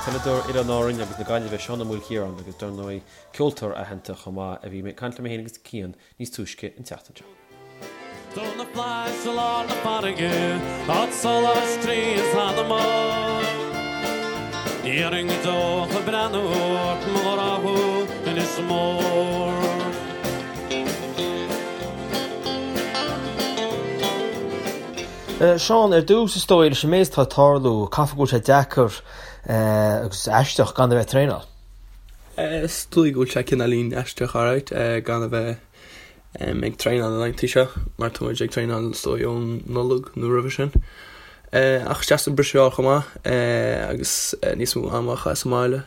Peileadóir Oileáin Árann agus na Gaillimhe Seán Ó Maoilchiaráin agus dar ndóigh ceoltóir aitheanta chomh maith a bhí ag caint liom féin agus Cian níos túisce an tseachtain seo. Do na flaithis i lár na farraige, áit solais croí is anama. Ní dhéanfainn go deo ach ag breathnú ort, mo ghrá thú, Inis Mór. Seán, ar dtús, is dóigh, leis an méid atá ag tarlú, caithfidh go bhfuil sé deacair agus aisteach gan a bheith ag traenáil. Is dóigh go bhfuil sé cineáilín aisteach alright gan a bheith ag traenáil na laethanta seo mar tá muid ag traenáil is dóigh ón Nollaig nó roimhe sin. Ach is deas an briseadh a fháil chomh maith agus níos mó ama a chaitheamh sa mbaile.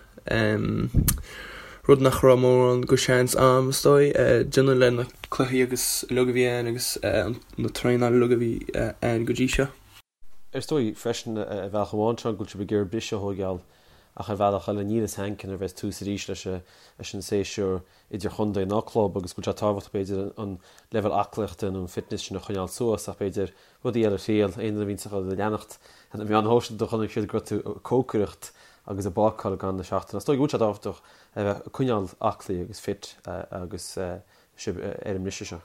Rud nach raibh mórán go seans a'm is dóigh déanamh le na cluichí agus uilig a bhí ann agus na traenáil uilig a bhí ann go dtí seo. Is dóigh freisin ar bhealach amháin Seán go bhfuil sibh ag iarraidh briseadh a thóigeáil ach ar bhealach eile níl fhios a'inn nuair a bheas tús arís leis an séasúr idirchontae ná club agus go bhfuil sé tábhachtach b'fhéidir an leibhéal aclaíochta nó an fitness sin a choinneáil suas ach b'fhéidir rudaí eile a thriail. Aon duine a bhíonns ag leanacht ar na meáin shóisialta chonaic siad go raibh tú ag cócaireacht agus ag bácáil gan na seachtaine. Is dóigh go bhfuil sé tábhachtach a bheith ag coinneáil aclaí agus fit agus sibh ar an mbriseadh seo.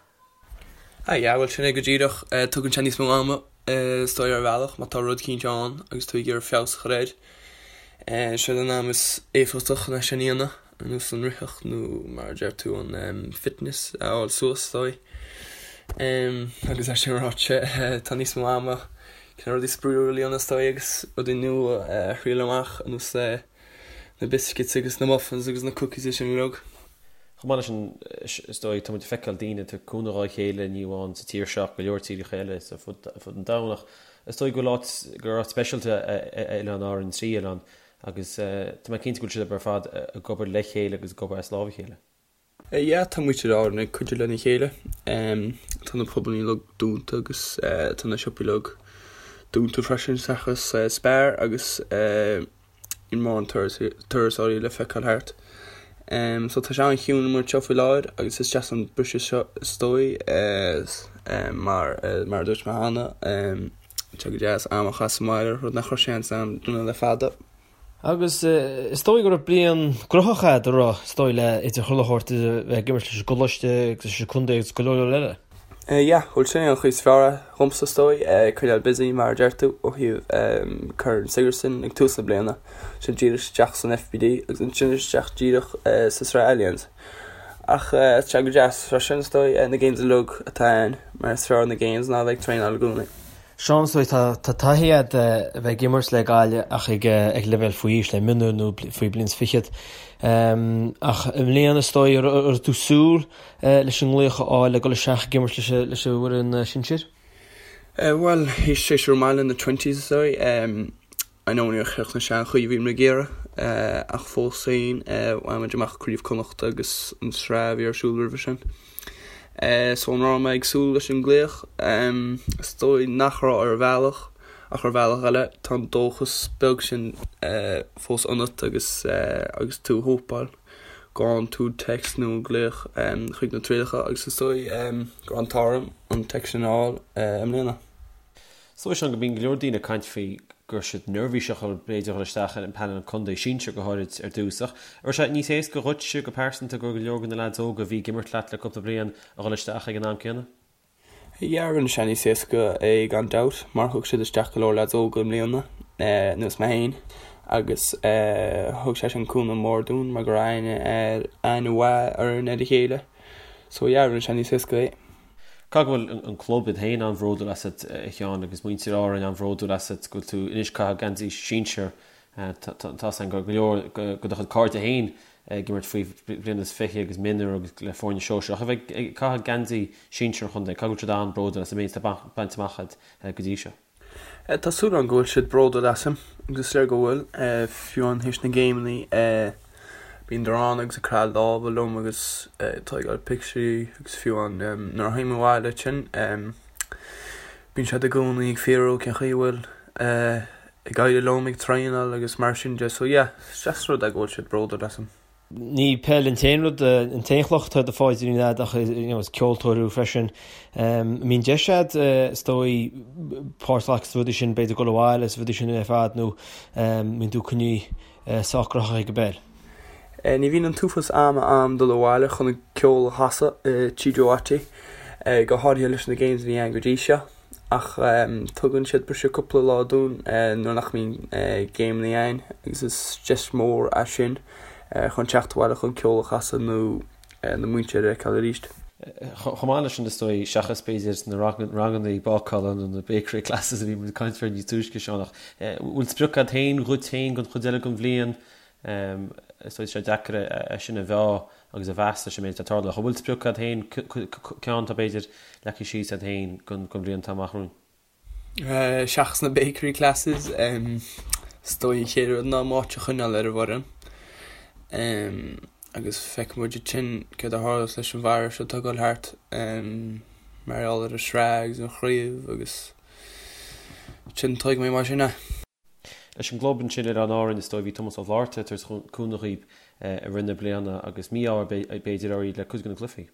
Ah yeah, bhuel sin é go díreach. Tugann sé níos mó ama is dóigh ar bhealach má tá rud eicínt ann agus tú ag iarraidh feabhas a chur air. Sin an am is éifeachtach chun é sin a dhéanamh. Ar nós an ritheacht nó mar a deir tú an fitness a fháil suas is dóigh. Agus é sin ráite tá níos mó ama chun rudaí spraíúla a dhéanamh is dóigh agus rudaí nua a thriail amach ar nós na biscuits agus na muffins agus na cookies is sin uilig. Chomh maith leis sin is dóigh tá muid ag feiceáil daoine ag tabhairt cúnamh dhá chéile ní amháin sa tír seo ach go leor tíortha eile ar fud an domhain ach is dóigh go bhfuil áit gur áit speisialta é Oileán Árann, an trí oileán Agus tá mé cinnte go bhfuil sibh ar fad ag obair le chéile agus ag obair as lámh a chéile. Yeah, tá muintir Árann ag cuidiú lena chéile. Tá na pubannaí uilig dúnta agus tá na siopaí uilig dúnta freisin seachas Spar agus níl mórán turasóirí le feiceáil thart. So tá sé an-chiúin amuigh anseo faoi láthair agus is deas an briseadh seo is dóigh mar mar a dúirt mé cheana. Tá go deas am a chaitheamh sa mbaile, rud nach raibh seans a'm déanamh le fada. Agus is dóigh go raibh bliain gnóthach a'd, a raibh, is dóigh, le idir chuile shórt, idir bheith ag imirt leis an gcoláiste agus leis an contae agus go leor leor eile. Yeah, bhuel sin é an chuid is fearr dhomsa is dóigh, coinneáil busy mar a deir tú, ó thaobh Corn Sigerson ag tús na bliana, sin díreach isteach san FBD agus ansin isteach díreach sa Sraith Allianz. Ach tá sé go deas freisin is dóigh, na games uilig atá ann, mar is fearr na games ná a bheith ag traenáil i gcónaí. Seán, is dóigh, tá taithí agat a bheith ag imirt le Gaillimh ach ag leibhéal faoi aois, le mionúir nó faoi bliain is fichead. Ach i mbliana is dóigh, an raibh tú ag súil leis an nglaoch a fháil le dul isteach ag imirt leis an bhfoireann sinsir? Bhuel, théis séasúr maith le na twenties is dóigh. I know níor chríochnaigh sé an chaoi a bhí muid ag iarraidh ach fós féin bhain muid amach Craobh Connachta agus an sraith a bhí ar siúl roimhe sin. So an raibh mé ag súil leis an nglaoch? Is dóigh nach raibh ar bhealach ach ar bhealach eile tá an dóchas beag sin fós ionat agus agus tú ag hópáil go bhfaigheann tú text nó glaoch chuig na trialacha agus is dóigh go raibh an t-ádh orm an text sin a fháil i mbliana. Is dóigh Seán go mbíonn go leor daoine ag caint faoi go raibh siad neirbhíseach b'fhéidir dhul isteach ar an bpainéal contae sinsir go háirid ar dtús. Ach an raibh sé níos éasca dhuitse go pearsanta go raibh go leor de na leaids óga a bhí ag imirt leat le cúpla bliain a dhul isteach ag an am céanna? Yeah, rinne sé níos éasca é gan dabht mar thug siad isteach go leor leaids óga i mbliana, anuas mé féin, agus thug sé sin cúnamh mór dúinn mar go raibh aithne aithne mhaith orainn ar a chéile. So yeah, rinne sé níos éasca é. Caithfidh go bhfuil an club iad féin an-bhródúil asat, a Sheáin, agus muintir Árainn an-bhródúil asat go bhfuil tú anois ag caitheamh geansaí sinsir. Tá 's agam go leor de do chuid cairde féin ag imirt faoi bhliain is 20 agus mionúir agus le foirne sóisearach a bheith ag caitheamh geansaí sinsir an chontae. Caithfidh go bhfuil siad an-bhródúil as an méid atá bainte amach agat go dtí seo. Tá súil agam go bhfuil siad bródúil asam, agus is léir go bhfuil. Fiú amháin théis na géimeanna, bíonn ann agus ag croitheadh lámha liom agus ag tógáil pictiúirí agus fiú amháin nuair a théim abhaile ansin, bíonn siad i gcónaí ag fiafraí cén chaoi a bhfuil ag éirí liom ag traenáil agus mar sin de. So yeah, is deas rud é go bhfuil siad bródúil asam. Ní peil an t-aon rud, an t-aon chloch atá i do phaidrín a'd ach is ceoltóir thú freisin. An mbíonn deis a'd is dóigh páirt a ghlacadh sna rudaí sin, b'fhéidir dul abhaile is rudaí sin ar fad nó an mbíonn tú coinnithe sách graitheach ag an bpeil? Ní bhíonn an t-uafás ama a'm dul abhaile chun an ceol a chasadh i Tigh Joe Watty, go háirithe leis na games a bhí ann go dtí seo. Ach tugann siad briseadh cúpla lá dúinn nuair nach mbíonn géimeanna ann agus is deis mhór é sin chun teacht abhaile chun ceol a chasadh nó na muintir a fheiceáil arís. Chomh maith leis sin, is dóigh, seachas b'fhéidir na ranganna bácála nó na bakery classes a bhí muid ag caint faoi níos túisce, Seán, ach bhfuil sprioc agat féin dhuit féin don chuid eile den bhliain? Is dóigh tá sé deacair é sin a mheá agus a mheas leis an méid atá ag tarlú. Ach an bhfuil sprioc agat féin, ceann atá b'fhéidir leagtha síos agat féin don bhliain atá amach romhainn? Seachas na bakery classes, is dóigh an chéad rud ná m'áit a choinneáil ar an bhfoireann. Agus feicfidh muid ansin céard a tharlós leis an bhfearadh seo atá ag dul thart mar gheall ar an sraith agus an chraobh agus ansin tuigfidh mé mar sin é. Leis an gclub ansin Oileáin Árann, is dóigh, bhí Tomás Ó Flátharta tar éis cúnamh dhaoib i rith na bliana agus mí-ádh b'fhéidir oraibh le cuid de na cluichí.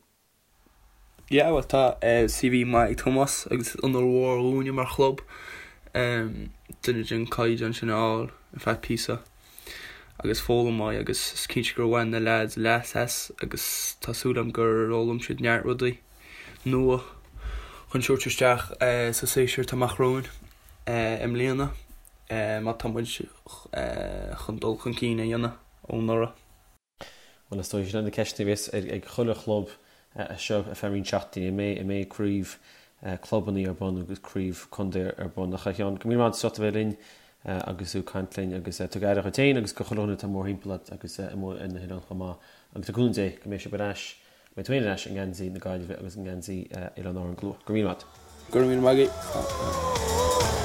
Yeah, bhuel tá CV maith ag Tomás agus is onóir mhór dhúinne mar chlub duine den caighdeán sin a fháil ar feadh píosa agus foghlaim uaidh agus is cinnte gur bhain na leaids leas as agus tá súil agam gur fhoghlaim siad neart rudaí nua chun tabhairt isteach sa séasúr atá amach romhainn. i mbliana má tá muid chun dul chun cinn a dhéanamh ó anuraidh. Bhuel, is dóigh, sin na ceisteanna a bheas ag chuile chlub as seo ar feadh roinnt seachtainí, an mbeidh, an mbeidh craobh clubanna ar bun agus craobh contae ar bun. Ach a Sheáin, go raibh míle maith agat as ucht a bheith linn agus tú ag caint linn agus tug aire dhuit féin agus go chuile dhuine atá mórthimpeall ort agus amuigh ar na hoileáin chomh maith. Agus le cúnamh Dé go mbeidh sibh ar ais Beidh tú féin ar ais i ngeansaí na Gaillimhe agus i ngeansaí Oileáin Árann go luath. Go raibh míle maith agat. Go raibh míle maith agat.